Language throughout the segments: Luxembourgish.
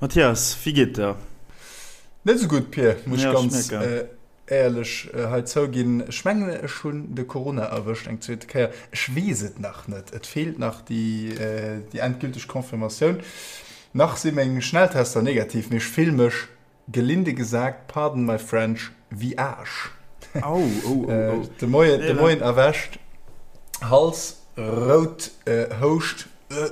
Mathias, wéi geet der? Net esou gutt, Pir, muss ech ganz éierlech hei zouginn. Ech mengen, ech hunn de Corona erwëscht eng zweete Kéier. Ech weess et nach net, et feelt nach déi endgülteg Confirmatioun. Nach si meng Schnelltester negativ, mee ech fill mech Gelinde gesagt, pardon my French, wéi Aasch. Au, oh, oh, oh. De Moien, de Moien erwächt, Hals rout, Houscht,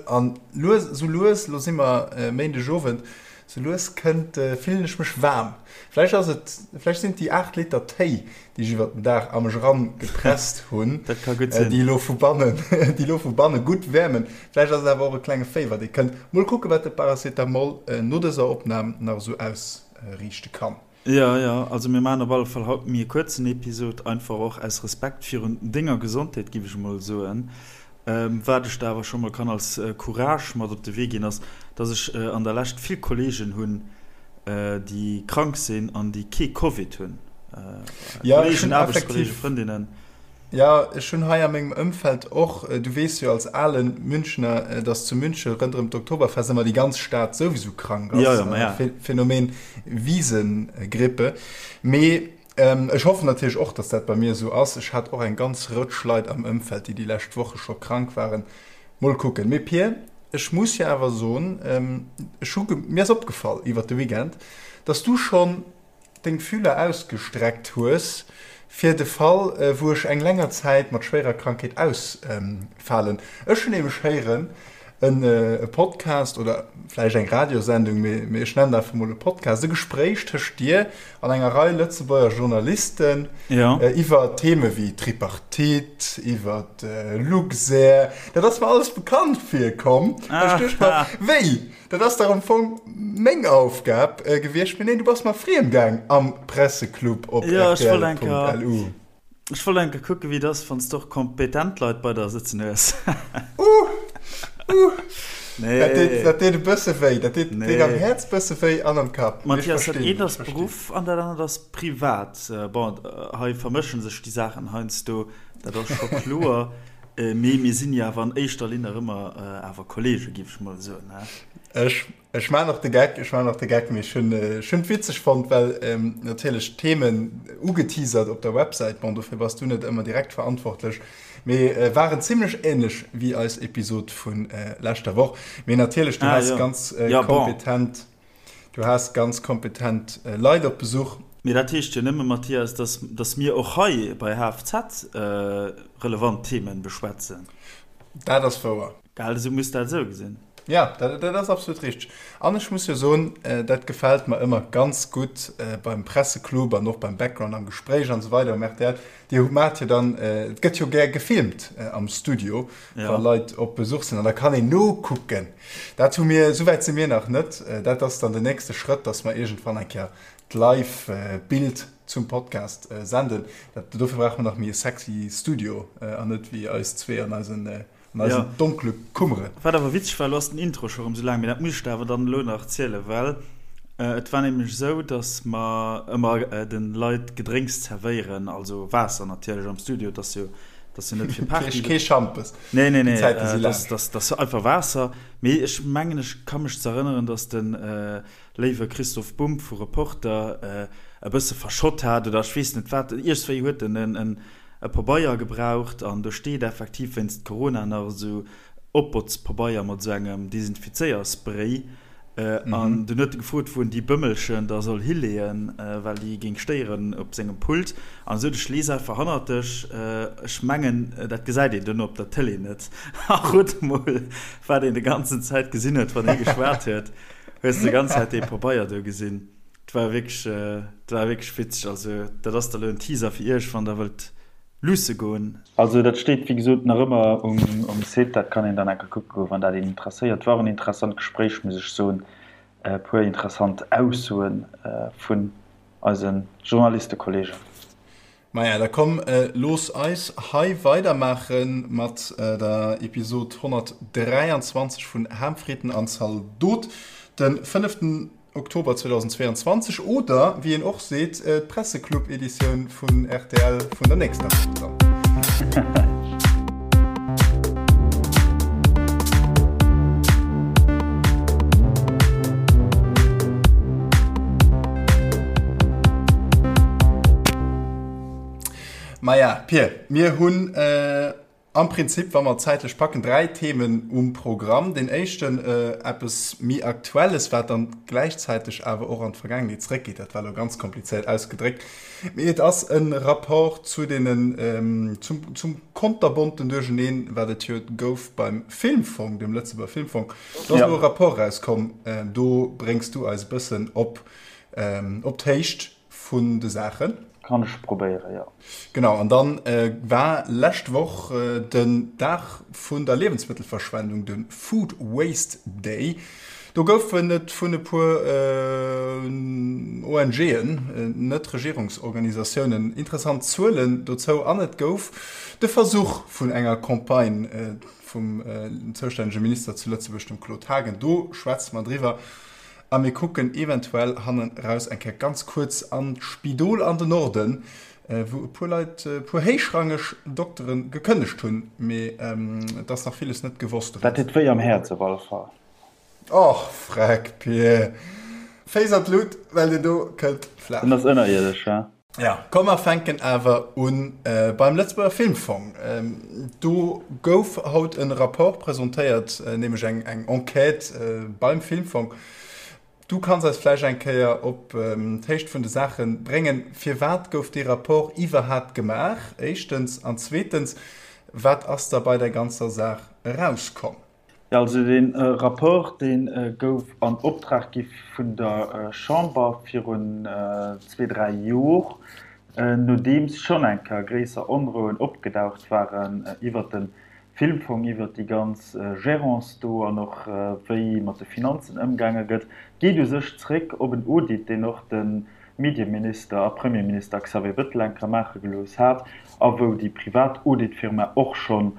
an lues, sou lues, lo si mer Méindegowend, sou lues kënnt, fillen ech mech waarm. Vläicht ass et, vläicht sinn et déi 8 Liter Téi, déi ech iwwert den Dag a mech eran gepresst hunn, Dat ka gutt sinn. déi elo vu bannen, déi elo vu banne gutt wäermen. Vläicht ass et awer och e klenge Féiwer, dee kënnt. Mol kucken, wat de Paracetamol no dëser Opnam nach esou ausriichte kann. Jo, jo, also mir maachen op alle Fall haut méi e kuerzen Episod, einfach och aus Respekt virun denger Gesondheet, giff ech emol soen. Wat ech der awer scho mol kann als Courage mat op de Wee ginn, ass, dass ech an der Lescht vill Kollegen hunn, déi krank sinn an déi kee Covid hunn. Ja, ech hunn effektiv, Frëndinnen. Ja, ech hunn hei a mengem Ëmfeld och, du weess jo als ale Münchner, dass zu Münche rënderëm d'Oktoberfest ëmmer déi ganz Stad souwisou krank ass. Ja, ja, ma ja. Phänomen Wiesengrippe. Mee ech hoffen natierlech och, dass dat bei mir esou ass. Ech hat och eng ganz Rëtsch Leit am Ëmfeld, déi déi lescht Woche scho krank waren. Mol kucken. Mee Pir, ech muss jo awer soen, ech hu, mir ass opgefall iwwert de Weekend, dass du schonn deng Fühler ausgestreckt hues fir de Fall, wou ech eng länger Zäit mat schwéierer Krankheet ausfalen. Ech hunn nämlech héieren, e Podcast oder vläicht eng Radiosendung, mee ech nennen einfach mol e Podcast, e Gespréich tëscht dir an enger Rei Lëtzebuerger Journalisten iwwer Theme wéi Tripartite, iwwer Luxair. Dat ass mer alles bekannt virkomm. Ech duecht mer, wéi, dat ass dach am Fong meng Aufgab gewiescht. Mee neen, du bass mer friem gaang am Presseclub op rtl.lu. Ech wollt eng Kéier kucken, wéi et ass, wann s de och kompetent Leit bei der sëtzen hues. Uh! Uh! Nee. Dat deet, dat deet e bësse wéi. Dat deet, nee. deet am Häerz bësse wéi an am Kapp. Mathias, dat eent ass Beruff an dat anert ass privat. Bon, hei vermëschen sech déi Saachen heiansdo, dat ass scho kloer. Mee mir sinn jo awer an éischter Linn nach ëmmer awer Kollege, géif ech mol soen, he? Ech Ech maan och de Geck, ech maan och de Geck, mee ech hunn, ech hunn et witzeg fonnt, well natierlech d'Themen ugeteasert op der Websäit, bon dofir bass du net ëmmer direkt verantwortlech, mee waren zimlech ähnlech wéi eis Episod vu leschter Woch. Mee natierlech, du has ganz kompetent, du has ganz kompetent Leit op Besuch. Mee dat heescht jo nëmme, Mathias, dass, dass mir och hei bei HFZ relevant Themen beschwätzen. Dat ass wouer. Gell, esou muss dat esou gesinn. Ja, dat, dat ass absolut richteg. An ech muss jo soen, dat gefält mer ëmmer ganz gutt beim Presseclub an och beim Background am Gespréich an esou weider um rtl. Dir maacht jo dann, et gëtt jo gär gefilmt am Studio, wa Leit op Besuch sinn an da kann een nokucken. Dat hu mir, esou wäit si mir nach net. Dat ass dann den nächste Schrëtt, dass mer iergendwann eng Kéier d'Live-Bild zum Podcast senden. Dat, dofir brauche mer nach méi e sexy Studio an net wéi eis zwee an eisen An eisen donkele Kummeren. Wat awer witzeg war, elo ass den Intro scho rëm sou laang, mee dat muss ech der awer dann elo nach zielen, well et war nämlech esou, dass mer ëmmer de Leit Gedrénks zerwéieren, also Waasser natierlech am Studio, et ass jo, et ass jo net fir Party. Kee Schampes. Nee, nee, nee, et ass einfach Waasser. Mee ech mengen, ech ka mech z'erënneren, dass de léiwe Christoph Bumb vu Reporter e bësse verschott hat oder ech weess net wat, iergswéi huet en en e Pabeier gebraucht an do steet effektiv wéinst Corona nach esou Opbotzpabeier mat esou engem Desinfizéierspray an dunn huet e gefrot wou en déi Bëmmelchen da soll hileeën, well déi géing stéieren op sengem Pult an esou. Ech lees einfach hannert dech, ech mengen dat gesäit een duerno op der Tëlee net a rot mol wat een de ganzen Zäit gesinn huet wann hie geschwat huet, hues de ganz Zäit dee Pabeier do gesinn. 't war wierklech, 't war wierklech witzeg. Also dat ass da lo en Teaser fir iech, wann der wëllt luusse goen. Also dat steet wéi gesot nach ëmmer um Site, dat kann een dann enker kucke goen, wann dat een interesséiert. War och en interessant Gespréich, muss ech soen, e puer interessant Aussoe vun eise Journalistekollegen. Maja, da komm, looss eis hei weidermaache mat der Episod 123 vun Ham, Fritten an Zaldot, de fënneften Oktober 2022 oder, wéi een och seet, d'Presseclub-Editioun vun rtl vun der nächster Woch dann. Maja, Pir, mir hunn am Prinzip, wa mer et zäitlech packen, 3 Themen um Programm. Deen éischten, eppes méi Aktuelles, wat dann gläichzäiteg awer och an d'Vergaangenheet zréckgeet. Dat war elo ganz komplizéiert ausgedréckt, mee et ass e Rapport zu deenen, zum, zum konterbonten Duercheneen, wat et jo gouf beim Filmfong, dem Lëtzebuerger Filmfong. Do ass elo e Rapport erauskomm, do bréngs du eis e bëssen op, op d'Héicht vun de Saachen. Kann ech probéieren, jo. Genau, an dann war lescht Woch den Dag vun der Liewensmëttelverschwendung, de Food Waste Day. Do goufen et vun e puer ONGen, Net-Regierungsorganisatiounen, interessant Zuelen dozou an et gouf de Versuch vun enger Campagne vum zoustännege Minister zu Lëtzebuerg, dem Claude Haagen. Do schwätze mer driwwer. A mir kucken eventuell hannen raus eng Kéier ganz kuerz an d'Spidol an den Norden, wou e puer Leit, e puer héichrangeg Doktere gekënnegt hunn. Mee et ass nach villes net gewosst Dat deet wéi am Häerz op alle Fall. Och freck, Pir. Féiss an d'Lut, well deen do kënnt flaach. Den ass ënnerierdesch, he? Ja, komm mer fänken awer un beim Lëtzebuerger Filmfong. Do gouf haut e Rapport presentéiert, nämlech eng eng Enquête beim Filmfong. Du kanns eis vläicht eng Kéier op d'Héicht vun de Saache bréngen. Firwat gouf dee Rapport iwwerhaapt gemaach, éischtens, an zweetens, wat ass da bei der ganzer Saach erauskomm? Jo, also dee Rapport, dee gouf an Optrag gi vun der Chamber virun zwee, dräi Jor, nodeems schonn eng Kéier gréisser Onrouen opgedaucht waren iwwert de Filmfong, iwwert déi ganz Gérance do an och wéi mat de Finanzen ëmgaange gëtt. Geet u sech zréck op en Audit, deen och de Medieminister a Premierminister Xavier Bettel eng Kéier maache gelooss hat a wou déi privat Auditfirma och schonn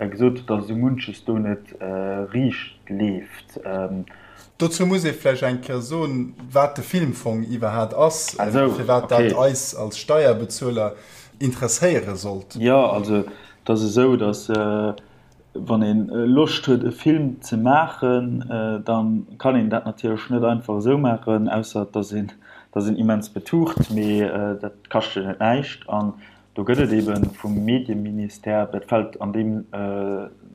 gesot huet, datt esou munches do net riicht leeft. Dozou muss ee vläicht eng Kéier soen, wat de Filmfong iwwerhaat ass, firwat dat eis als Steierbezueler interesséiere sollt. Jo, also et ass esou, datt wann ee Loscht huet e Film ze maachen, da kann een dat natierlech net einfach esou maachen, ausser et ass een, et ass een immens betucht, mee dat kascht jo net näischt. An Do gëtt et ebe vum Medieministère, dat fält an deem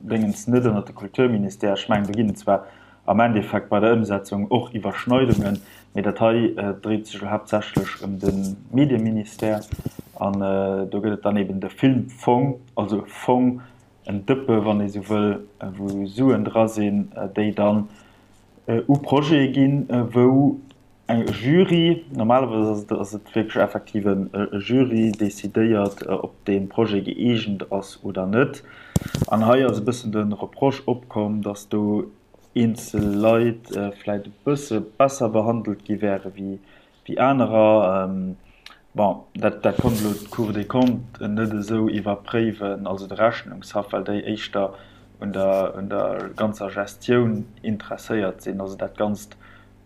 Déngens net ënnert de Kulturministère, ech mengen, do ginn et zwar am Endeffekt bei der Ëmsetzung och Iwwerschneidungen, mee dat hei dréit sech elo haaptsächlech ëm de Medieministère. An do gëtt et dann eben de Filmfong, also e Fong, en Dëppe wann ee sou wëll, wou Suen dra sinn, déi dann u Projete ginn, wou eng Jury, normalerweis ass et wierklech effektiv e Jury, decidéiert, ob dee Projet gëeegent ass oder net. An hei ass e bëssen de Reproche opkomm, datt do eenzel Leit vläicht e bësse besser behandelt gi wäre wéi anerer. Bon, dat dat konnt elo d'Cour des Comptes net esou iwwerpréiwen, also de Rechnungshaff, well déi éischter un der un der ganzer Gestioun interesséiert sinn, also dat Ganzt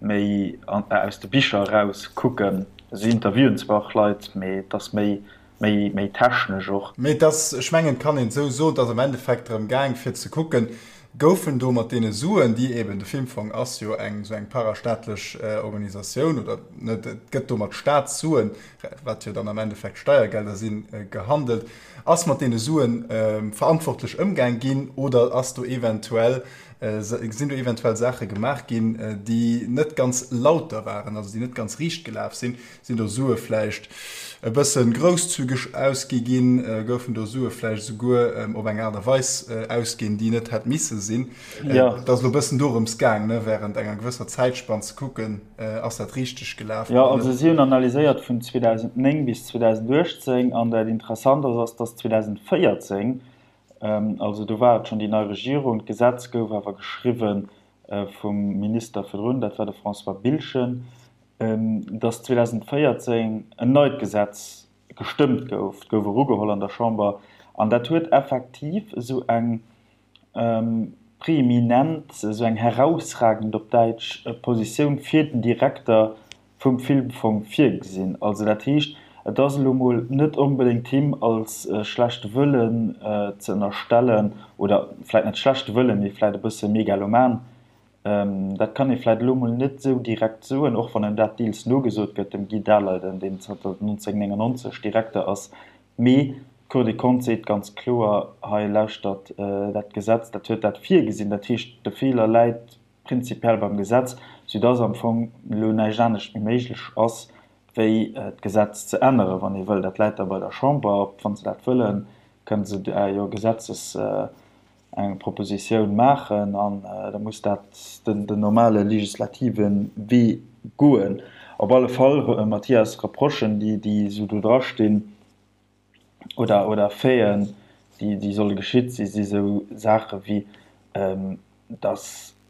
méi aus de Bicher eraus kucken. Si interviewen zwar och Leit, mee et ass méi méi méi technesch och. Mee et ass, ech mengen, et kann een esou soen, et ass am Endeffekt drëm gaang fir ze kucken, Goufen do mat deene Suen, déi eben, de Filmfong ass jo eng esou eng parastaatlech Organisatioun, oder net, et gëtt do mat Staatssuen, wat jo dann am Endeffekt Steiergelder sinn, gehandelt, ass mat deene Suen verantwortlech ëmgaang ginn oder ass do eventuell, sinn do eventuell Saache gemaach ginn, déi net ganz lauter waren, also déi net ganz riicht gelaf sinn? Sinn do Sue vläicht e bësse grousszügeg ausgi ginn? Goufen do Sue vläicht esouguer op eng Aart a Weis ausginn, déi net hätt misse sinn? Et ass elo e bëssen dorëms gaang, ne, während enger gewësser Zäitspann ze kucken, ass dat richteg gelaf Jo, oder also net? si hunn analyséiert vun 2009 bis 2018 an dat Interessant ass, ass, dass 2014, also do war et schonn déi nei Regierung, d'Gesetz gouf awer geschriwwe vum Minister virdrun, dat war de François Biltgen, dass 2014 en neit Gesetz gestëmmt gouf, et gouf erugeholl an der Chamber, an dat huet effektiv esou eng preeminent, esou eng herausragend op Däitsch, Positioun fir den Direkter vum Filmfong virgesinn. Also dat heescht, et ass elo mol net onbedéngt him als schlechte Wëllen ze ënnerstellen, oder vläicht net schlechte Wëllen, mee vläicht e bësse megaloman, Dat kann ee vläit elo mol net esou direkt soen, och wann em dat deels nogesot gëtt, dem Guy Daleiden, deen zanter 1999 Direkter ass. Mee. D'Cour des Comptes seet ganz kloer, hei lauschtert, dat Gesetz, dat huet dat virgesinn. Dat heescht, de Feeler läit prinzipiell beim Gesetz, soudass am Fong elo näischt anescht méi méiglech ass, wéi d'Gesetz ze änneren, wann ee wëll. Dat läit da bei der Chamber. Wa se dat wëllen, kënne se jo Gesetzes eng Propositioun maachen an da muss dat den normale legislative Wee goen. Op alle Fall, Mathias, Reprochen, déi esou do drastinn, oder oder Faiten, déi déi solle geschitt si, si sou Saache wéi, datt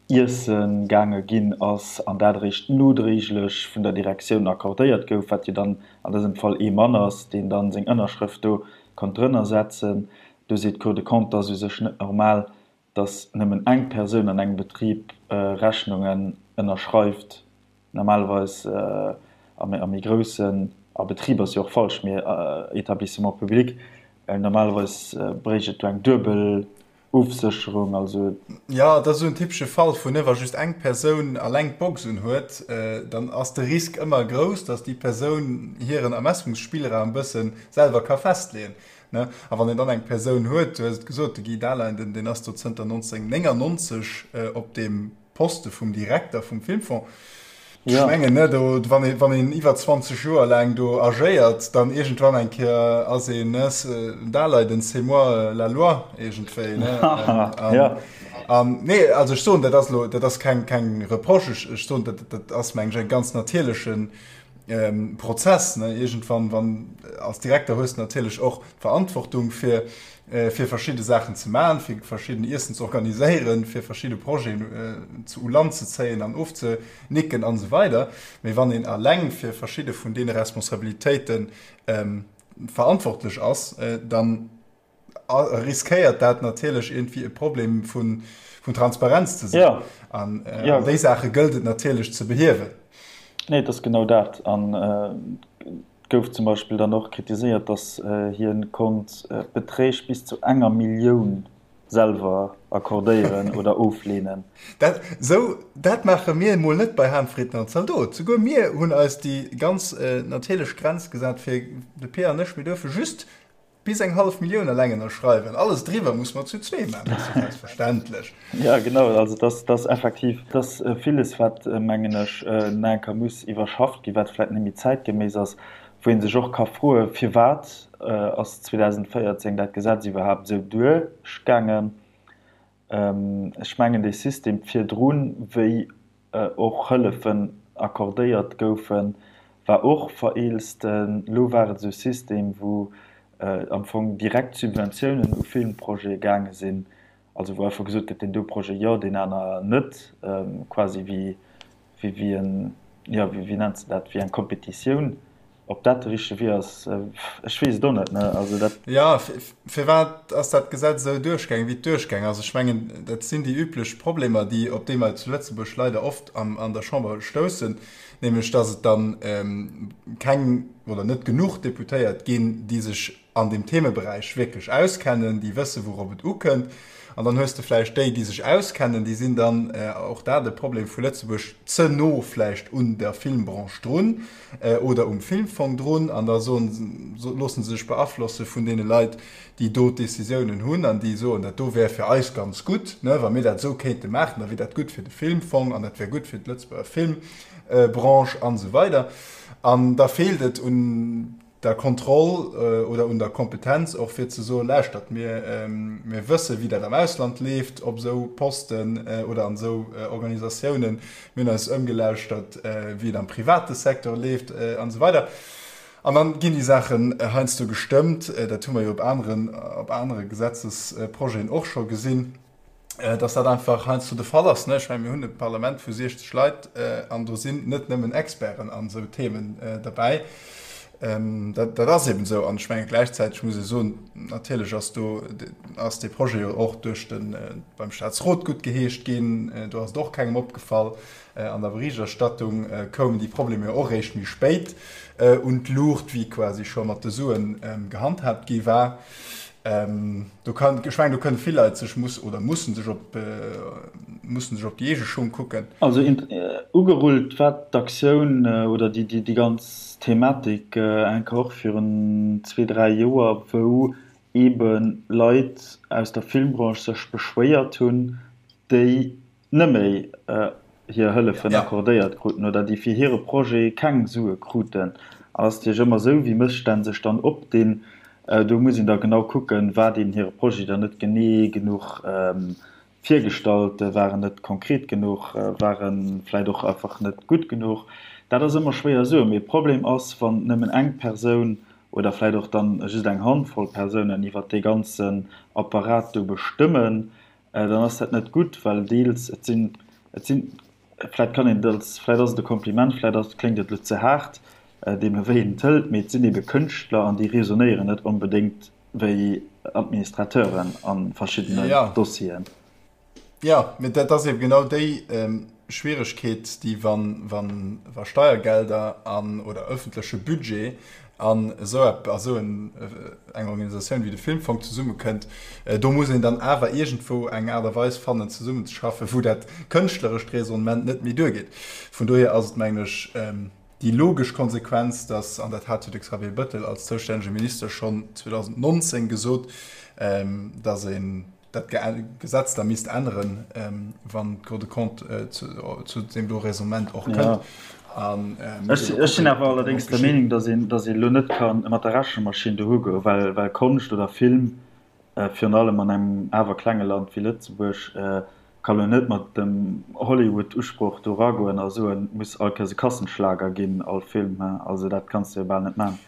Iesse gaange ginn ass an dat eréischt nodréiglech vun der Direktioun accordéiert gouf, wat jo dann an dësem Fall ee Mann ass, deen dann seng Ënnerschrëft do konnt drënner setzen. Do seet d'Cour des Comptes, et ass u sech net normal, dass nëmmen eng Persoun an engem Betrib Rechnungen ënnerschreift. Normalerweis a méi groussen, a Betrib ass jo och falsch, mee Établissement public, normalerweis bréicht et do eng duebel Ofsécherung. Also. Jo, et ass esou en typesche Fall vun, wa just eng Persoun alleng d'Box un huet, dann ass de Risk ëmmer grouss, dass déi Persoun hiren Ermessungsspillraum e bësse selwer ka festleeën. Ne? A wann een dann eng Persoun huet, du hues et gesot, de Guy Dahlein, den, deen ass do zënter 1999 op deem Poste vum Direkter vum Filmfong. Ech ja. mengen, ne, do, wann een, wann een iwwer 20 Joer laang do agéiert, dann iergendwann eng Kéier ass een, ne, Dahleiden, c'est moi la loi, iergendwéi, ne? An, ja. an, nee, also ech soen, dat ass lo, dat ass keng, keng Reproche, ech, ech soen, dat, dat ass, meng ech, e ganz natierlechen, Prozess, ne? Iergendwann, wann, als Direkter hues de natierlech och d'Verantwortung fir, fir verschidde Saachen ze maachen, fir verschidden Iessen ze organiséieren, fir verschidde Projeten ze u Land ze zéien an ofzenicken an esou weider. Mee wann een alleng fir verschidde vun deene Responsabilitéite verantwortlech ass, dann riskéiert dat natierlech iergendwéi e Problem vun Transparenz ze sinn. Ja. An ja. déi Saache gëllt et natierlech ze behiewen. Nee, et ass genau dat. An et gouf zum Beispill dann och kritiséiert, datt hien konnt Beträg bis zu enger Millioun selwer accordéieren oder ofleenen. Dat, sou, dat maache mir emol net bei Hahnfrieden an Zaldot. Souguer mir hunn eis déi ganz natierlech Grenz gesat fir de Peer an ech, mir duerfe just Bis eng hallef Millioun eleng ënnerschreiwen, alles driwwer muss mer zu zwee maachen, dat ass jo selbstverständlech. Jo, genau, also dass dass effektiv, dass villes, wat, mengen ech, nach eng Kéier muss iwwerschafft ginn, wat vläicht net méi zäitgeméiss ass, wou ee sech och ka froen, Firwat ass 2014 dat Gesetz iwwerhaapt esou duerchgaangen? Ech mengen, dee System virdrun, wéi och Hëllefen accordéiert goufen, war och vereelzt. Elo war et esou e System, wou am Fong direkt Subventiounen u Filmprojete gaange sinn, also wou einfach gesot gëtt, deen do Projet jo, deen aner net, quasi wéi wéi en, jo, wéi nennt se dat, wéi eng Kompetitioun. Ob dat de richtege Wee ass, ech weess et och net, ne? Also dat. Jo, firwat ass dat Gesetz esou duerchgaangen, wéi et duerchgaangen ass? Ech mengen, dat sinn déi üblech Problemer, déi, op déi mer zu Lëtzebuerg leider oft an der Chamber stoussen, nämlech datt et dann keng oder net genuch Deputéiert ginn, déi sech an deem Themeberäich wierklech auskennen, déi wëssen, wourop et ukënnt. An dann hues de vläicht déi, déi sech auskennen, déi sinn dann, och dat e Problem vu Lëtzebuerg, ze no vläicht un der Filmbranche drun oder um Filmfong drun an da soen, loosse se sech beaflosse vun deene Leit, déi do d'Décisiounen hunn an déi soen, dat do wär fir eis ganz gutt, ne, wa mir dat esou kéinte maachen, da wier dat gutt fir de Filmfong an dat wär gutt fir d'Lëtzebuerger Filmbranche an esou weider. An da feelt et un der Kontroll oder un der Kompetenz och fir ze soen, lauschtert, mir, mir wësse wéi dat am Ausland leeft op esou Posten oder an esou Organisatiounen, mir hunn eis ëmgelauschtert wéi et am private Secteur leeft an esou weider. An dann ginn déi Saachen heiansdo gestëmmt, dat hu mer jo op aneren, op anere Gesetzesprojeten och scho gesinn. dass dat einfach heiansdo de Fall ass. Ech mengen, mir hunn e Parlament vu 60 Leit an do sinn net nëmmen Experten an esou Themen derbäi. Dat ass eben esou. An ech menge gläichzäiteg muss ee soen, natierlech ass do, ass dee Projet jo och duerch de, beim Staatsrot guttgeheescht ginn. Do ass et och kengem opgefall. An der Berichterstattung koumen déi Problemer jo och eréischt méi spéit un d'Luucht, wéi quasi scho mat de Suen gehandhaabt gi war. Do kann, ech mengen, do kënne vill Leit sech muss oder mussen sech op mussen sech op déi eege Schung kucken. Also ugerullt war d'Aktioun oder déi ganz Thematik enker och virun zwee, dräi Joer, wou eebe Leit aus der Filmbranche sech beschwéiert hunn, déi neméi hir Hëllefen accordéiert kruten oder déi fir hire Projet keng Sue kruten. An ass natierlech ëmmer esou, wéi Mësstänn sech dann opdinn, do muss een da genau kucken, war deen hire Projet dann net genee genuch virgestallt, war en net konkret genuch, war e vläicht och einfach net gutt genuch. Dat ass ëmmer schwéier soen. Mee Problem ass, wann nëmmen eng Persoun oder vläicht och dann just eng Handvoll Persounen iwwert dee ganzen Apparat do bestëmmen, dann ass dat net gutt, well deels, et sinn, et sinn, vläicht kann een et als, vläicht ass et e Kompliment, vläicht ass, kléngt et elo ze haart, deemno wéi een et hëlt, mee et sinn ebe Kënschtler an déi raisonnéieren net onbedéngt wéi Administrateuren a verschiddenen Dossieren. Jo, mee dat ass eben genau déi Schwieregkeet, déi wann, wann, wa Steiergelder an, oder öffentleche Budget an esou ep, a sou en, eng Organisatioun wéi de Filmfong zesummekënnt, do muss een dann awer iergendwou eng Aart a Weis fannen zesummenzeschaffen, wou dat kënschtlerescht Raisonnement net méi duergeet. Vun dohier ass et, mengen ech, déi logesch Konsequenz, dass, an dat hat jo de Xavier Bettel als zoustännege Minister schonn 2019 gesot, dass een dat Gesetz da misst änneren, wann d'Cour des Comptes zu deem do Raisonnement och kënnt. Ech sinn awer allerdéngs der Meenung, datt een, datt een elo net ka mat der Rechenmaschinn dohu goen, well, well Konscht oder Film, virun allem an engem awer klenge Land wéi Lëtzebuerg, ka lo net mat dem Hollywood-Usproch do eragoen a soen, et muss all Kéiers e Kassenschlager ginn, all Film. Also dat kanns de jo bal net maachen.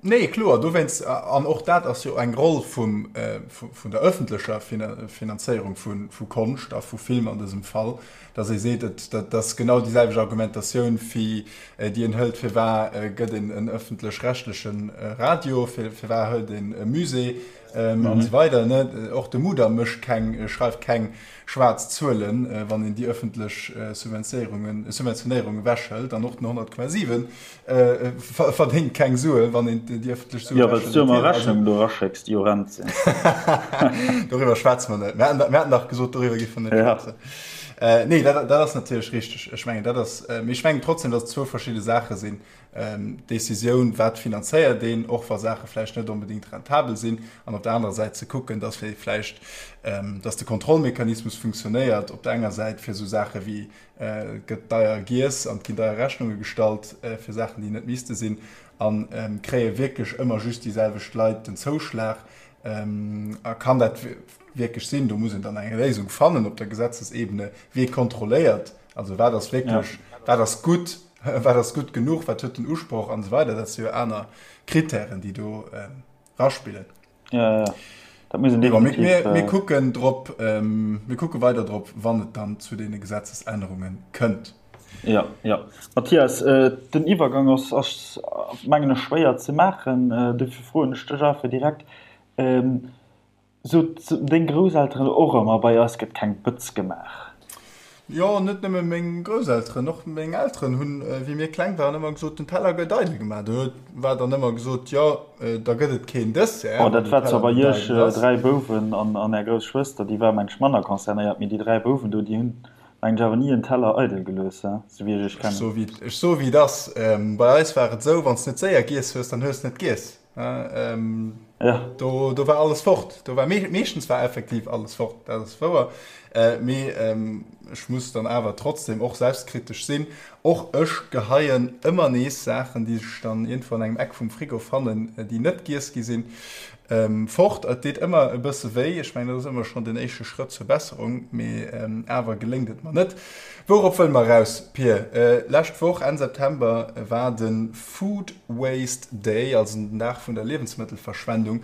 Nee, kloer, dowéinst, an och dat ass jo eng Roll vum, vun der öffentlecher Finanzéierung vu Konscht a vu Film an dësem Fall, datt ee seet, et, dat ass genau déi selwecht Argumentatioun wéi déi een hëlt, firwat gëtt een en öffentlech-rechtleche Radio, firwat hëlt een e Musée an esou weider, ne. Och de Mudam mécht keng, schreift keng schwaarz Zuelen, wann een déi öffentlech Subventionéierungen, Subventionéierung ewechhëlt, an och den 100,7 Verdéngt keng Sue wann een déi ëffentlech Sue. Jo, well s du ëmmer Rechnungen do eraschécks, déi horrend sinn. Doriwwer schwätze mer net. Mir haten dach gesot, doriwwer géife mer net schwätzen. Nee, dat ass natierlech richteg. Ech mengen, dat ass, mee ech mengen trotzdem, datt et zwou verschidde Saache sinn. D'Decisioun, wat finanzéiert een, och wa Saache vläicht net onbedéngt rentabel sinn, an op der anerer Säit ze kucken, datt vläicht, datt de Kontrollmechanismus funktionéiert op der enger Säit fir esou Saache wéi Et gëtt deier giess an et ginn deier Rechnunge gestallt fir Saachen, déi net misste sinn. A kréie wierklech ëmmer just déi selwecht Leit den Zouschlag? A kann dat wierklech sinn? Do muss een dann eng Léisung fannen op der Gesetzesebene. Wie kontrolléiert? Also wat ass wierklech, wat ass gutt, wat ass gutt genuch, wat huet den Usproch an esou weider. Dat si jo aner Kritären, déi do raspillen. Ja, ja. Dat muss een definitiv. Mir, mir, mir kucken drop, ähm, mir kucke weider drop, wann et dann zu deene Gesetzesännerunge kënnt. Ja, ja. Mathias, äh, den Iwwergang ass, ass mengen ech schwéier ze maachen, äh, dofir froen ech dech einfach direkt. Ähm, Sot deng Grousselteren och ëmmer, bei eis gëtt keng Bëtz gemaach? Jo, net nëmme meng Grousselteren, och meng Elteren hunn, wéi mir kleng waren, ëmmer gesot, den Teller gëtt eidel gemaach. Do war dann ëmmer gesot, jo, da gëtt et keen Dessert, Oh, dat war zwar bei iech 3 Bouwen an är grouss Schwëster, déi war, meng ech, manner concernéiert, mee déi 3 Bouwen do, déi hunn, meng ech, awer ni en Teller eidel gelooss, he, sou wéi ech iech kennen. Ech soe wéi et ass, bei eis war et esou, wann s net séier giess hues, dann hues net giess. Ähm, ja. do, do war alles fort. Do war me meeschtens war effektiv alles fort, dat ass wouer. Äh, mee ähm, ech muss dann awer trotzdem och selbstkritesch sinn. Och ech geheien ëmmer nees Saachen, déi sech dann iergendwou an engem Eck vum Frigo fannen, äh, déi net giess gi sinn, ähm, fort. Et deet ëmmer e bësse wéi. Ech mengen, dat ass ëmmer schonn den éischte Schrëtt zur Besserung, mee ähm, awer geléngt et mer net. Wourop wëlle mer eraus, Pir? Äh, lescht Woch, Enn September, war de Food Waste Day, also den Dag vun der Liewensmëttelverschwendung.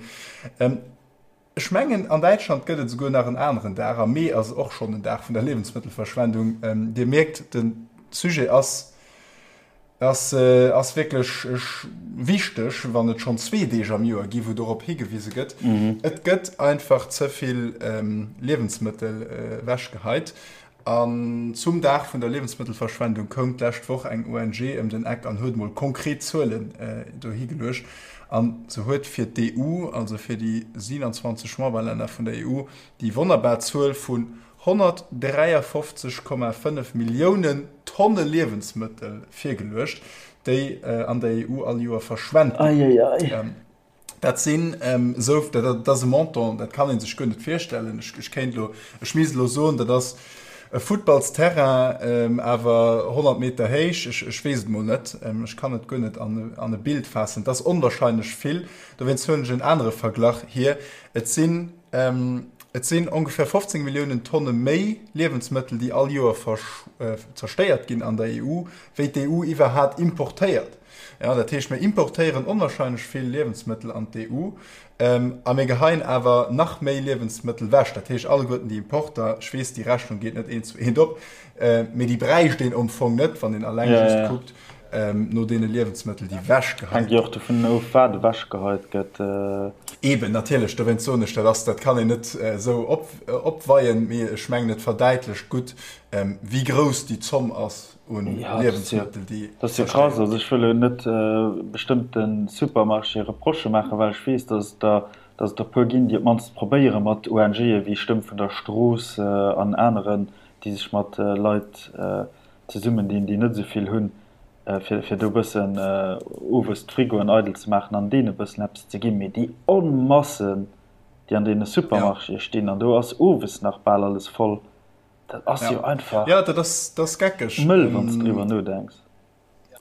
Ech mengen, an Däitschland gëtt et esouguer nach en aneren Dag. Am Mee ass och schonn en Dag vun der Liewensmëttelverschwendung. Dir mierkt, de Sujet ass, ass, ass wierklech wichteg, wann et schonn zwee Deeg am Joer gi wou dorop higewise gëtt. Et gëtt einfach ze vill Liewensmëttel ewechgeheit. An zum Dag vun der Liewensmëttelverschwendung koum d'lescht Woch eng ONG ëm den Eck an huet mol konkret Zuelen dohi geluecht. A se huet fir d'EU, also fir déi 27 Memberlänner vun der EU, déi wonnerbar Zuel vun 153,5 Milliounen Tonne Liewensmëttel virgeluecht, déi an der EU all Joer verschwent ginn. Dat sinn esou, dat ass e Montant, dat kann ee sech guer net virstellen. Ech kéint elo, ech misst elo soen, dat ass e Futtballsterrain, awer 100 Meter héich. Ech weess et mol net, ech kann et guer net an e Bild faassen. Et ass onwahrscheinlech vill. Dowéinst huelen ech en anere Verglach hier. Et sinn, et sinn ongeféier 15 Milliounen Tonne méi Liewensmëttel, déi all Joer zerstéiert ginn an der EU, wéi d'EU iwwerhat importéiert. Jo, dat heescht, mir importéieren onwahrscheinlech vill Liewensmëttel an d'EU a mir geheien awer nach méi Liewensmëttel wech. Dat heescht, alleguerten déi Importer, ech weess, déi Rechnung geet net eent zu eent op, mee déi bräicht een am Fong net, wann een alleng just kuckt no deene Liewensmëttel, déi wechgeheit ginn. Hänkt jo och dovun of, wat ewechgeheit gëtt. Eeben, natierlech, dowéinst soen ech, dat ass, dat kann een net esou opweien, mee ech mengen, et verdäitlecht gutt, wéi grouss déi Zomm ass. un Liewensmëttel, déi Dat ass jo krass. Also ech wëll elo net bestëmmte Supermarchéë Reprochë maachen, well ech weess, datt et der, datt et der e puer ginn, déi op d'mannst probéiere mat ONGe wéi Stëmm vun der Strooss an aneren, déi sech mat Leit zesummendinn, déi net esou vill hunn, fir, fir do e bëssen owes d'Frigoen eidel ze maachen an deene e bëssen eppes ze ginn. Mee déi Onmassen, déi an deene Supermarchéë stinn, an do ass owes nach bal alles voll, Dat ass jo einfach. Ja, dat ass, dat ass geckeg. Mëll, wann s de driwwer nodenks.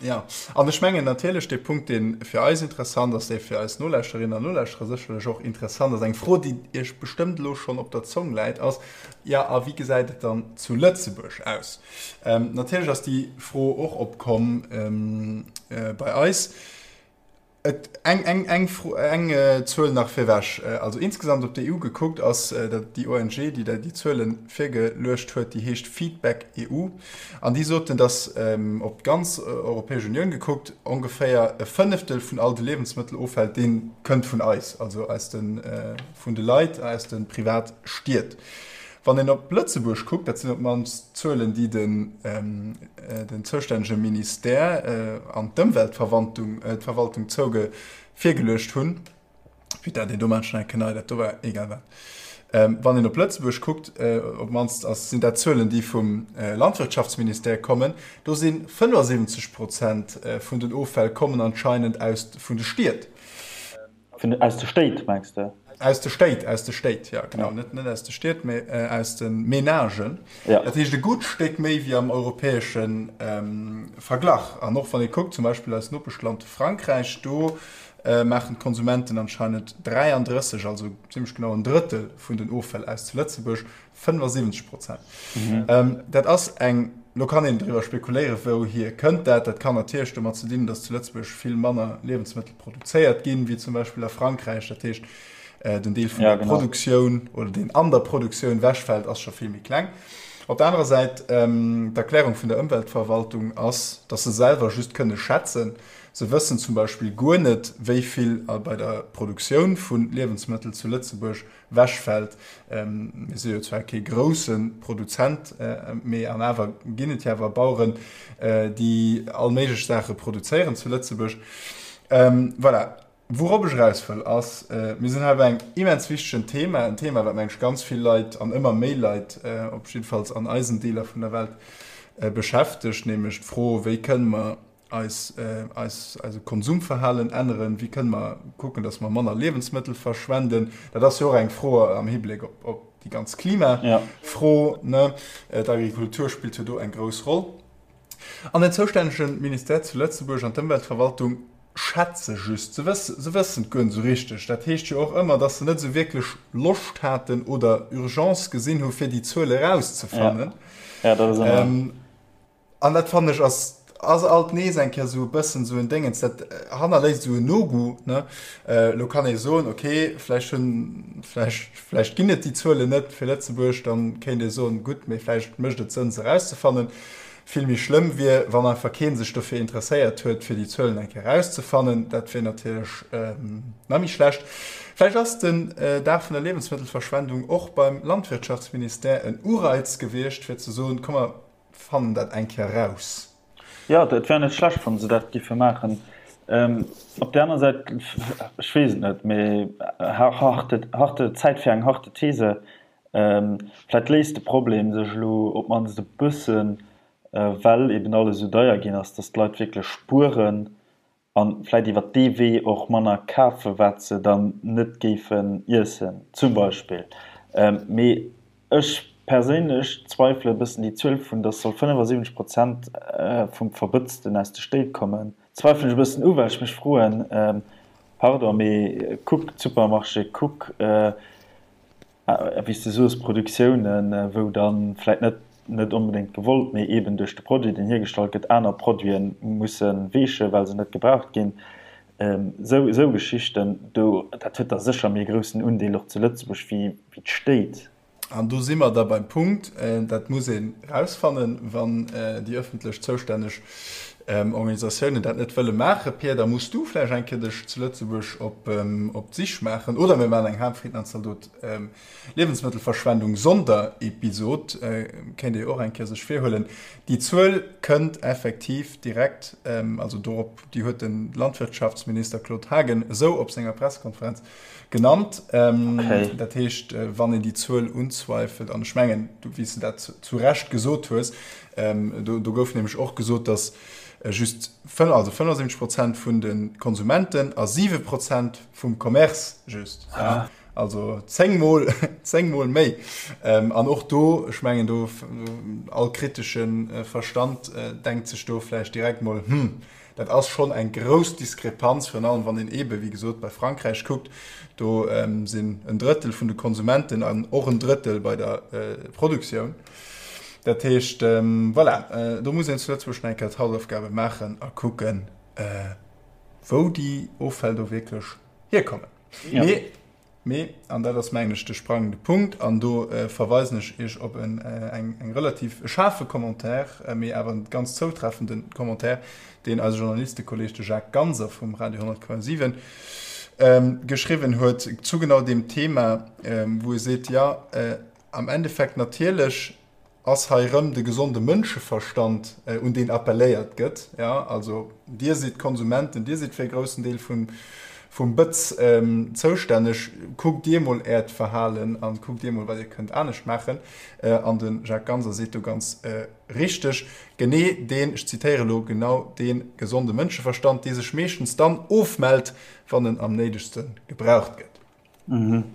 Ja, an ech mengen natierlech, dee Punkt, dee fir eis interessant ass, dee fir eis Nolauschterinnen an Nolauschterer sécherlech och interessant ass, eng Fro, déi Iech bestëmmt elo schonn op der Zong läit, ass, Ja, a wéi gesäit et dann zu Lëtzebuerg aus? Natierlech ass déi Fro och opkomm bei eis. Et, eng, eng, eng Fro, eng Zuel nach virwech. Also insgesamt op d'EU gekuckt ass dat déi ONG, déi dat déi Zuele virgeluecht huet, déi heescht Feedback EU. An déi soten, datt op d'ganz Europäesch Unioun gekuckt ongeféier e Fënneftel vun all de Liewensmëtteloffäll, dee kënnt vun eis, also aus de, vun de Leit, aus de Privatstied. Wann een op Lëtzebuerg kuckt, dat sinn op d'mannst Zuelen, déi den zoustännege Ministère an d'Ëmweltverwaltung d'Verwaltung zouge virgeluecht hunn, putain, deen do maan ech nach eng Kéier nei, dat do war egal wat. Wann een op Lëtzebuerg kuckt, op d'mannst ass sinn dat Zuelen, déi vum Landwirtschaftsministère kommen, do si 75 Prozent vun den Offäll kommen anscheinend aus vun de Stied. Vun, aus de Stéit, mengs de? Aus de Stéit, aus de Stéit, jo, genau. Net, net aus de Stied, mee aus de Menagen. Ja. Dat heescht e gutt Stéck méi wéi am europäesche Verglach. An och wann ee kuckt, zum Beispill eist Nopeschland Frankräich, do maachen d'Konsumenten anscheinend 33, also zimmlech genau en Drëttel vun den Offäll aus zu Lëtzebuerg. 75 Prozent. Mhm. Dat ass eng, lo kann een driwwer spekuléieren, wouhier kënnt dat. Dat kann natierlech domat ze dinn hunn, datt zu Lëtzebuerg vill manner Liewensmëttel produzéiert ginn, wéi zum Beispill a Frankräich. Dat heescht, den Deel vun der Produktioun oder deen an der Produktioun wechfält, ass scho vill méi kleng. Op der anerer Säit, d'Erklärung vun der Ëmweltverwaltung ass, datt se selwer just kënne schätzen. Se wëssen zum Beispill guer net, wéi vill bei der Produktioun vu Liewensmëttel zu Lëtzebuerg Wechfält. Mir si jo zwar kee grousse Produzent, mee an awer ginn et jo awer Baueren, déi all méiglech Saache produzéieren zu Lëtzebuerg. Voilà. Wourop ech eraus wëll, ass, mir sinn hei bei engem immens wichtegen Thema, en Thema, wat, meng ech, ganz vill Leit an ëmmer méi Leit, op jiddefalls an eisen Deeler vun der Welt, beschäftegt, nämlech d'Fro, Wéi kënne mer eis, eis, eise Konsumverhalen änneren? Wéi kënne mer kucken, datt mer manner Liewensmëttel verschwenden? Dat ass jo och eng Fro am Hibléck op, op déi ganz Klimafro, ne? D'Agrikultur spillt jo do eng grouss Roll. An den zoustännege Ministère zu Lëtzebuerg an d'Ëmweltverwaltung schätze just, se wëssen, se wëssen et guer net esou richteg. Dat heescht jo och ëmmer, datt se net esou wierklech Loscht haten oder Urgence gesinn hu fir déi Zuel erauszefannen. Ja, ja, dat ass ëmmer. An dat fannen ech ass ass alt nees eng Kéier esou e bëssen esou en Déngens, dat hannerléisst esou en Nogoût, ne. Elo kann ee soen, okay, vläicht hunn, vläicht, vläicht ginn et déi Zuelen net fir Lëtzebuerg, dann kéint ee soen, gutt, mee vläicht mécht et Sënn se erauszefannen. Vill méi schlëmm wier, wann einfach kee sech dofir interesséiert huet, fir déi Zuelen eng Kéier erauszefannen. Dat wier natierlech nach méi schlecht. Vläicht ass den Dag vun der Liewensmëttelverschwendung och beim Landwirtschaftsministère en Ureiz gewiescht, fir ze soen, komm mer Fannen dat eng Kéier raus. Jo, et wär net schlecht, wann se dat giffe maachen. Op där aner Säit, ech weess et net, mee harte, Zäit fir eng harte These, vläicht léist de Problem sech elo op d'mannst e bëssen, well eben alles esou deier ginn ass, datt d'Leit wierklech spueren. A vläit iwwer dee Wee och manner kafen, wat se dann net géifen iessen, zum Beispill. Mee ech perséinlech zweifele e bëssen déi Zuel vun, dass soll 75 Prozent vum Verbëtzten aus de Stéit kommen, zweifelen ech e bëssen u, well ech mech froen, pardon, mee kuck d'Supermarché, kuck, Wéi s de soos, Produktiounen, wou da vläit net, net onbedéngt gewollt, mee eeben duerch de Produit, deen hiergestallt gëtt, aner Produite musse weechen, well se net gebraucht ginn. Esou, esou Geschichten do, dat huet da sécher méi e groussen Undeel och zu Lëtzebuerg wéi, wéi d'Stéit. An do si mer da beim Punkt, dat muss een erausfannen, wann déi ëffentlech zoustänneg Organisatiounen dat net wëlle maachen. Pia, da muss du vläicht eng Kéier dech zu Lëtzebuerg op d'Sich maachen. Oder mir maachen eng Harmfrieden an Zaldot Liewensmëttelverschwendung Sonderepisod, kéint ee jo och eng Kéier sech virhuelen. Déi Zuel kënnt effektiv direkt, also dorop, déi huet de Landwirtschaftsminister Claude Haagen esou op senger Pressekonferenz genannt. Dat heescht, wann een déi Zuel unzweifelt, an ech mengen, wéi s de dat zu Recht gesot hues, do gouf nämlech och gesot, datt just also 75 Prozent vun de Konsumenten a 7 Prozent vum Commerce just, also zéngmol, zéngmol méi. An och do, ech mengen do, all kritesche Verstand denkt sech do vläicht direkt mol, Hm, Dat ass schonn eng grouss Diskrepanz, virun allem wann een eebe wéi gesot bei Frankräich kuckt. Do sinn en Drëttel vun de Konsumenten an och en Drëttel bei der Produktioun. Dat heescht, voilà, do muss een zu Lëtzebuerg nach eng Kéier d'Hausaufgabe maachen a kucken, wou déi Offäll do wierklech hierkommen. Mee Mee, an dat ass mengen ech de sprangende Punkt, an do verweisen ech Iech op en eng relativ e schaarfe Commentaire, mee awer en ganz zoutreffende Commentaire, deen eise Journalistekolleg, de Jacques Ganser vum Radio 100,7 geschriwwen huet zu genau deem Thema, wou e seet, jo, am Endeffekt natierlech ass hei erëm de gesonde Mënscheverstand, un deen appelléiert gëtt, jo, also Dir sidd d'Konsumenten, Dir sidd fir e groussen Deel vum, vum Bëtz zoustänneg, kuckt Dir mol Äert Verhalen a kuckt Dir mol, wat Dir kënnt anescht maachen. An de Jacques Ganser seet do ganz richteg, genee deen, ech zitéiere elo, genau dee gesonde Mënscheverstand, dee sech meeschtens dann ofmellt, wann en am néidegste gebraucht gëtt. Mhm.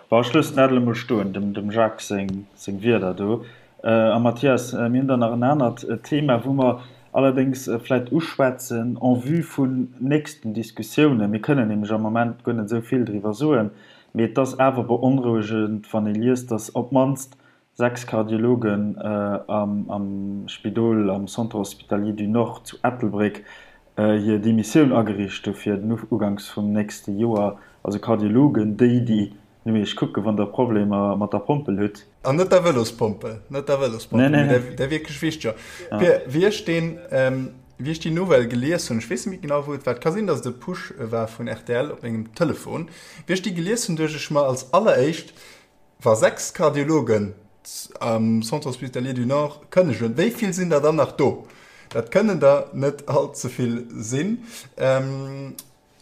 Bon, ech loossen dat elo mol stoen, dem, dem Jacques seng, seng Wierder do. A Mathias, mir hunn dann nach en anert Thema, wou mer allerdéngs vläicht uschwätzen en vue vun nächsten Diskussiounen. Mir kënnen nämlech am Moment guer net esou vill driwwer soen, mee et ass awer beonrouegend, wann ee liest, datt op d'mannst 6 Kardiologen am Spidol am Centre Hospitalier du Nord zu Ettelbréck hir Demissioun agereecht hu fir den Uganks vum nächste Joer. Also Kardiologen, déi, déi no iech kucken, wann der Problemer mat der Pompel hutt. An net der Vëlospompel, net der Vëlospompel, mee där wierklech wichteger. Pir, wéi ech deen, wéi ech déi Nouvelle gelies hunn, ech weess net méi genau, wou et war, et ka sinn, datt et e Push war vun rtl op mengem Telefon, wéi ech déi gelies hunn, duecht ech mer als alleréischt, Wa 6 Kardiologen am Centre Hospitalier du Nord kënnegen, wéi vill sinn der dann nach do? Dat kënnen der net all ze vill sinn.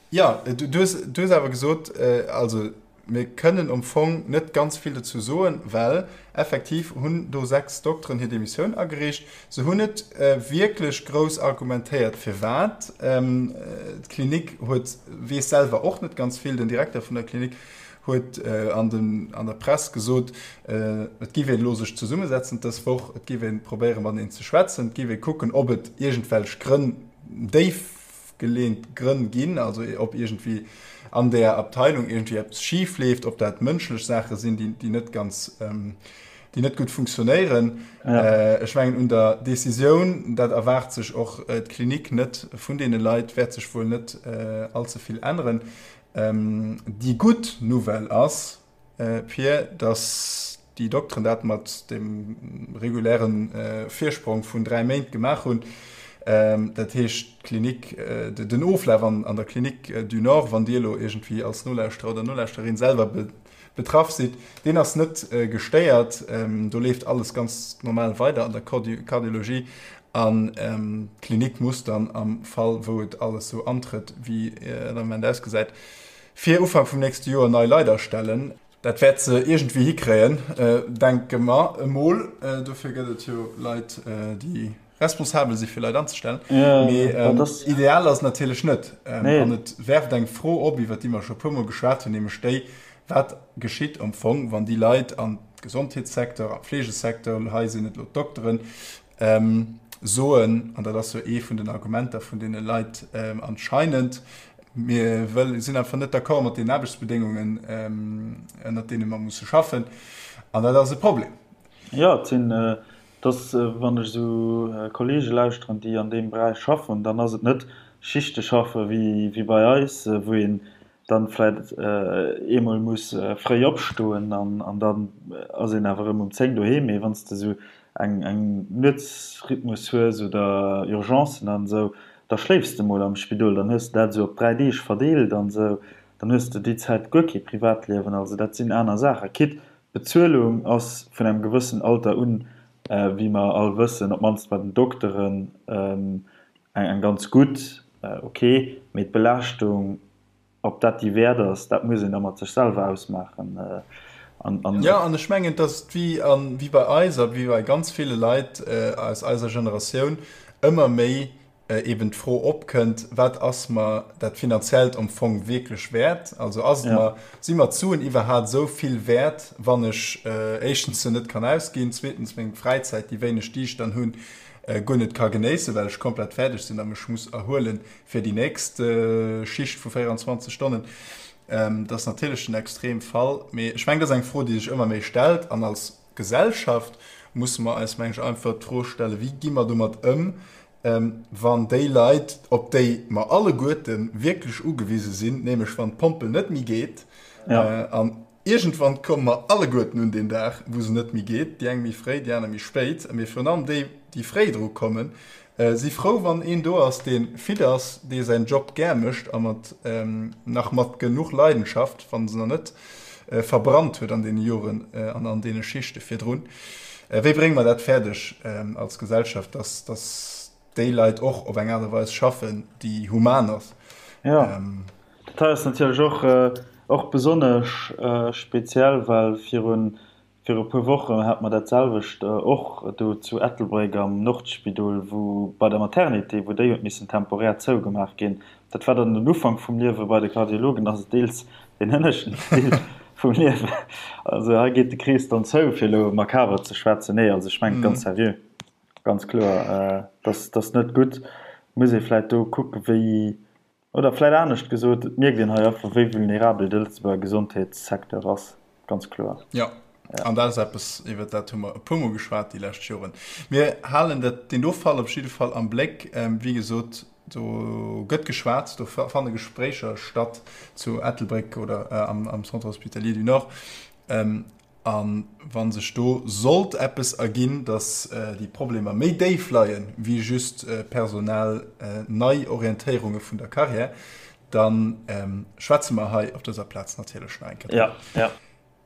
Jo, du hues awer gesot, also mir kënnen am Fong net ganz vill dozou soen, well effektiv hunn do 6 Dokteren hir Demissioun agereecht. Se hunn net wierklech grouss argumentéiert firwat. D'Klinik huet, weess selwer och net ganz vill, den Direkter vun der Klinik huet an den an der Press gesot, et giff een elo sech zesummesetzen dës Woch, et giff een probéieren mateneen ze schwätzen, et giff ee kucken, ob et iergendwelch Grënn, déifgeleent Grënn ginn, also ob iergendwéi an där Abteilung iergendwéi eppes schif leeft, ob dat mënschlech Saache sinn, déi déi net ganz, déi net gutt funktionéieren. Ech mengen un der Decisioun, dat erwaart sech och d'Klinik net vun deene Leit, wäert sech wuel net allze vill änneren. Déi gutt Nouvelle ass, Pir, datt déi Dokteren dat mat dem reguläre Virsprong vun 3 Méint gemaach hunn. Dat heescht, d'Klinik, den Oflaf an der Clinique du Nord, wann Dir elo iergendwéi als Nolauschterer oder Nolauschtererin selwer betraff sidd, deen ass net gestéiert. Do leeft alles ganz normal weider an der Kardiologie an d'Klinik muss dann am Fall, wou et alles sou antrëtt, wéi et am Moment ausgesäit, fir Ufank vum nächste Joer nei Leit astellen. Dat wäert se iergendwéi hikréien, denke mer emol. Dofir gëtt et jo Leit, déi. responsabel si fir Leit anzestellen. Mee ideal ass et natierlech net. An et werft eng Fro op, iwwer déi mer scho e puermol geschwat hunn, nämlech déi, Wat geschitt am Fong, wann déi Leit am Gesondheetssecteur, am Fleegesecteur, hei sinn et elo d'Dokteren, soen, an dat ass jo ee vun den Argumenter vun deene Leit anscheinend, mir sinn einfach net d'accord mat den Aarbechtsbedéngungen, ënnert deene mer musse schaffen, an dat ass e Problem. Jo, et sinn, et ass, wann ech esou Kollege lauschteren, déi an deem Beräich schaffen, dann ass et net Schichte schaffe wéi bei eis, wou een dann vläit eemol muss fréi opstoen an dann ass een awer erëm um 10 doheem. Mee wann s de esou eng eng Nuetsrhythmus hues oder Urgencen an esou, da schléifs de mol am Spidol, dann hues de dat esou op 3 Deeg verdeelt an esou, dann hues de déi Zäit guer kee Privatliewen. Also dat sinn aner Saachen. Quitte d'Bezuelung ass vun engem gewëssen Alter un, wéi mer all wëssen, op d'mannst bei den Dokteren, eng ganz gutt, ok, mee d'Belaaschtung, ob dat déi wäert ass, dat muss een da mat sech selwer ausmaachen. An. Jo, an ech mengen, dass et wéi a wéi bei eis a wéi bei ganz ville Leit aus eiser Generatioun ëmmer méi eben d'Fro opkënnt, Wat ass mer dat Finanziellt am Fong wierklech wäert? Also ass et mer, si mer d'Suen iwwerhaat esou vill wäert, wann ech éischtens se net kann ausginn, zweetens meng Fräizäit, déi wéineg déi ech dann hunn, guer net ka genéissen, well ech komplett fäerdeg sinn a mech muss erhuelen fir déi nächst Schicht vu 24 Stonnen. Dat ass natierlech den Extremfall, mee ech mengen, dat ass eng Fro, déi sech ëmmer méi stellt. An als Gesellschaft musse mer eis, meng ech, einfach d'Fro stellen, Wéi gi mer domat ëm, wann déi Leit, op déi mer alleguerte wierklech ugewise sinn, nämlech wann d'Pompel net méi geet an Iergendwann komme mer alleguerten un deen Dag, wou se net méi geet, déi eng méi fréi, déi aner méi spéit. Mee virun allem déi, déi fréi dru kommen, si frou, wann een do ass, dee fit ass, dee säin Job gär mécht a mat nach mat genuch Leidenschaft, wann se nach net verbrannt huet an deene Joren an an deene Schichte virdrun. Wéi brénge mer dat fäerdeg als Gesellschaft, dass, dass déi Leit och op eng Aart a Weis schaffen, déi human ass? Jo. Dat hei ass natierlech och och besonnesch speziell, well virun viru puer Wochen hate mer dat selwecht och do zu Ettelbréck am Nordspidol, wou bei der Maternité, wou déi huet missen temporär zougemaach ginn. Dat war dann den Ufank vum Liewe bei de Kardiologen, ass et deels deen hënneschten Deel vum Liewen. Also hei geet de Krees dann zou, fir elo makaber ze schwätzen. Nee, also ech mengen et ganz seriö, ganz kloer, dass dass net gutt. Muss ee vläicht do kucken, wéi Oder vläit anescht gesot, et mierkt een hei einfach, wéi vulnerabel de Lëtzebuerger Gesondheetssecteur ass, ganz kloer. Jo, an dat ass eppes, iwwert dat hu mer e puermol geschwat déi lescht Joren. Mir halen dat, deen do Fall op jidde Fall am Bléck. Wéi gesot, do gëtt geschwat, do fanne Gespréicher statt zu Ettelbréck oder am Centre hospitalier du Nord. A wa sech do sollt eppes erginn, datt déi Problemer méi déif leien, wéi just personell Neiorientéierunge vun der Carrière, da schwätze mer hei op dëser Plaz natierlech nach eng Kéier driwwer.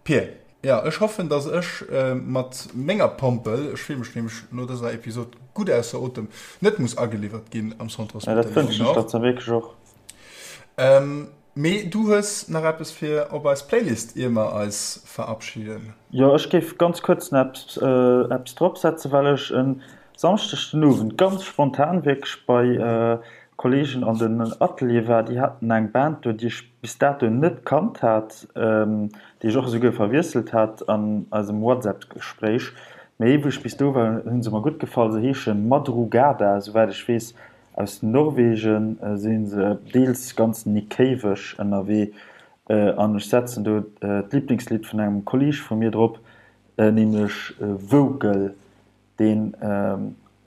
Pir, jo, ech hoffen, datt ech mat menger Pompel, ech fille mech nämlech no dëser Episod gutt ausser Otem, net muss ageliwwert ginn am Centre hospitalier du Nord. Mee du hues nach eppes fir op eis Playlist ier mer eis verabschiden? Jo, ech géif ganz kuerz nach eppes drop setzen, well ech e Samschdeg den Owend ganz spontan wierklech bei Kollegen an den Atelier war. Déi haten eng Band do, déi ech bis dato net kannt hat, déi ech och esouguer verwiesselt hat an eisem WhatsApp-Gespréich. Mee wou ech bis do war, hu se mer gutt gefall. Se heesche Madrugada, esouwäit ech weess Aus Norwegen si se deels ganz Nick-Cave-eg ënnerwee an ech setzen do d'Liblingslidd vun engem Kolleeg vu mir drop, nämlech Vocal, deen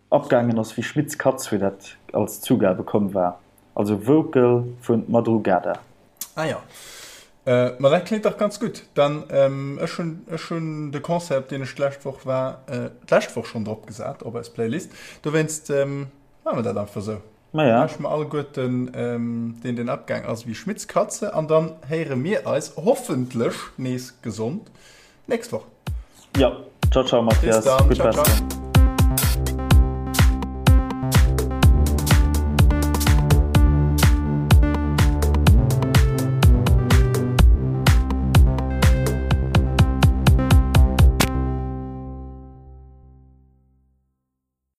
abgaangen ass wéi Schmitz Katz, wéi dat als Zugabe komm war. Also Vocal vu Madrugada. Ah jo, ma dat kléngt dach ganz gutt. Dann, ech hunn, ech hunn de Concert, op deen ech d'lescht Woch war, d'lescht Woch schonn drop gesat op eis Playlist. Dowéinst Maache mer dat einfach esou. Maja. Lauschteren mer alleguerten deen deen abgaang ass wéi Schmitz Katze an dann héiere mir eis hoffentlech nees gesond nächst Woch. Jo, ciao ciao Mathias, gutt Besserung.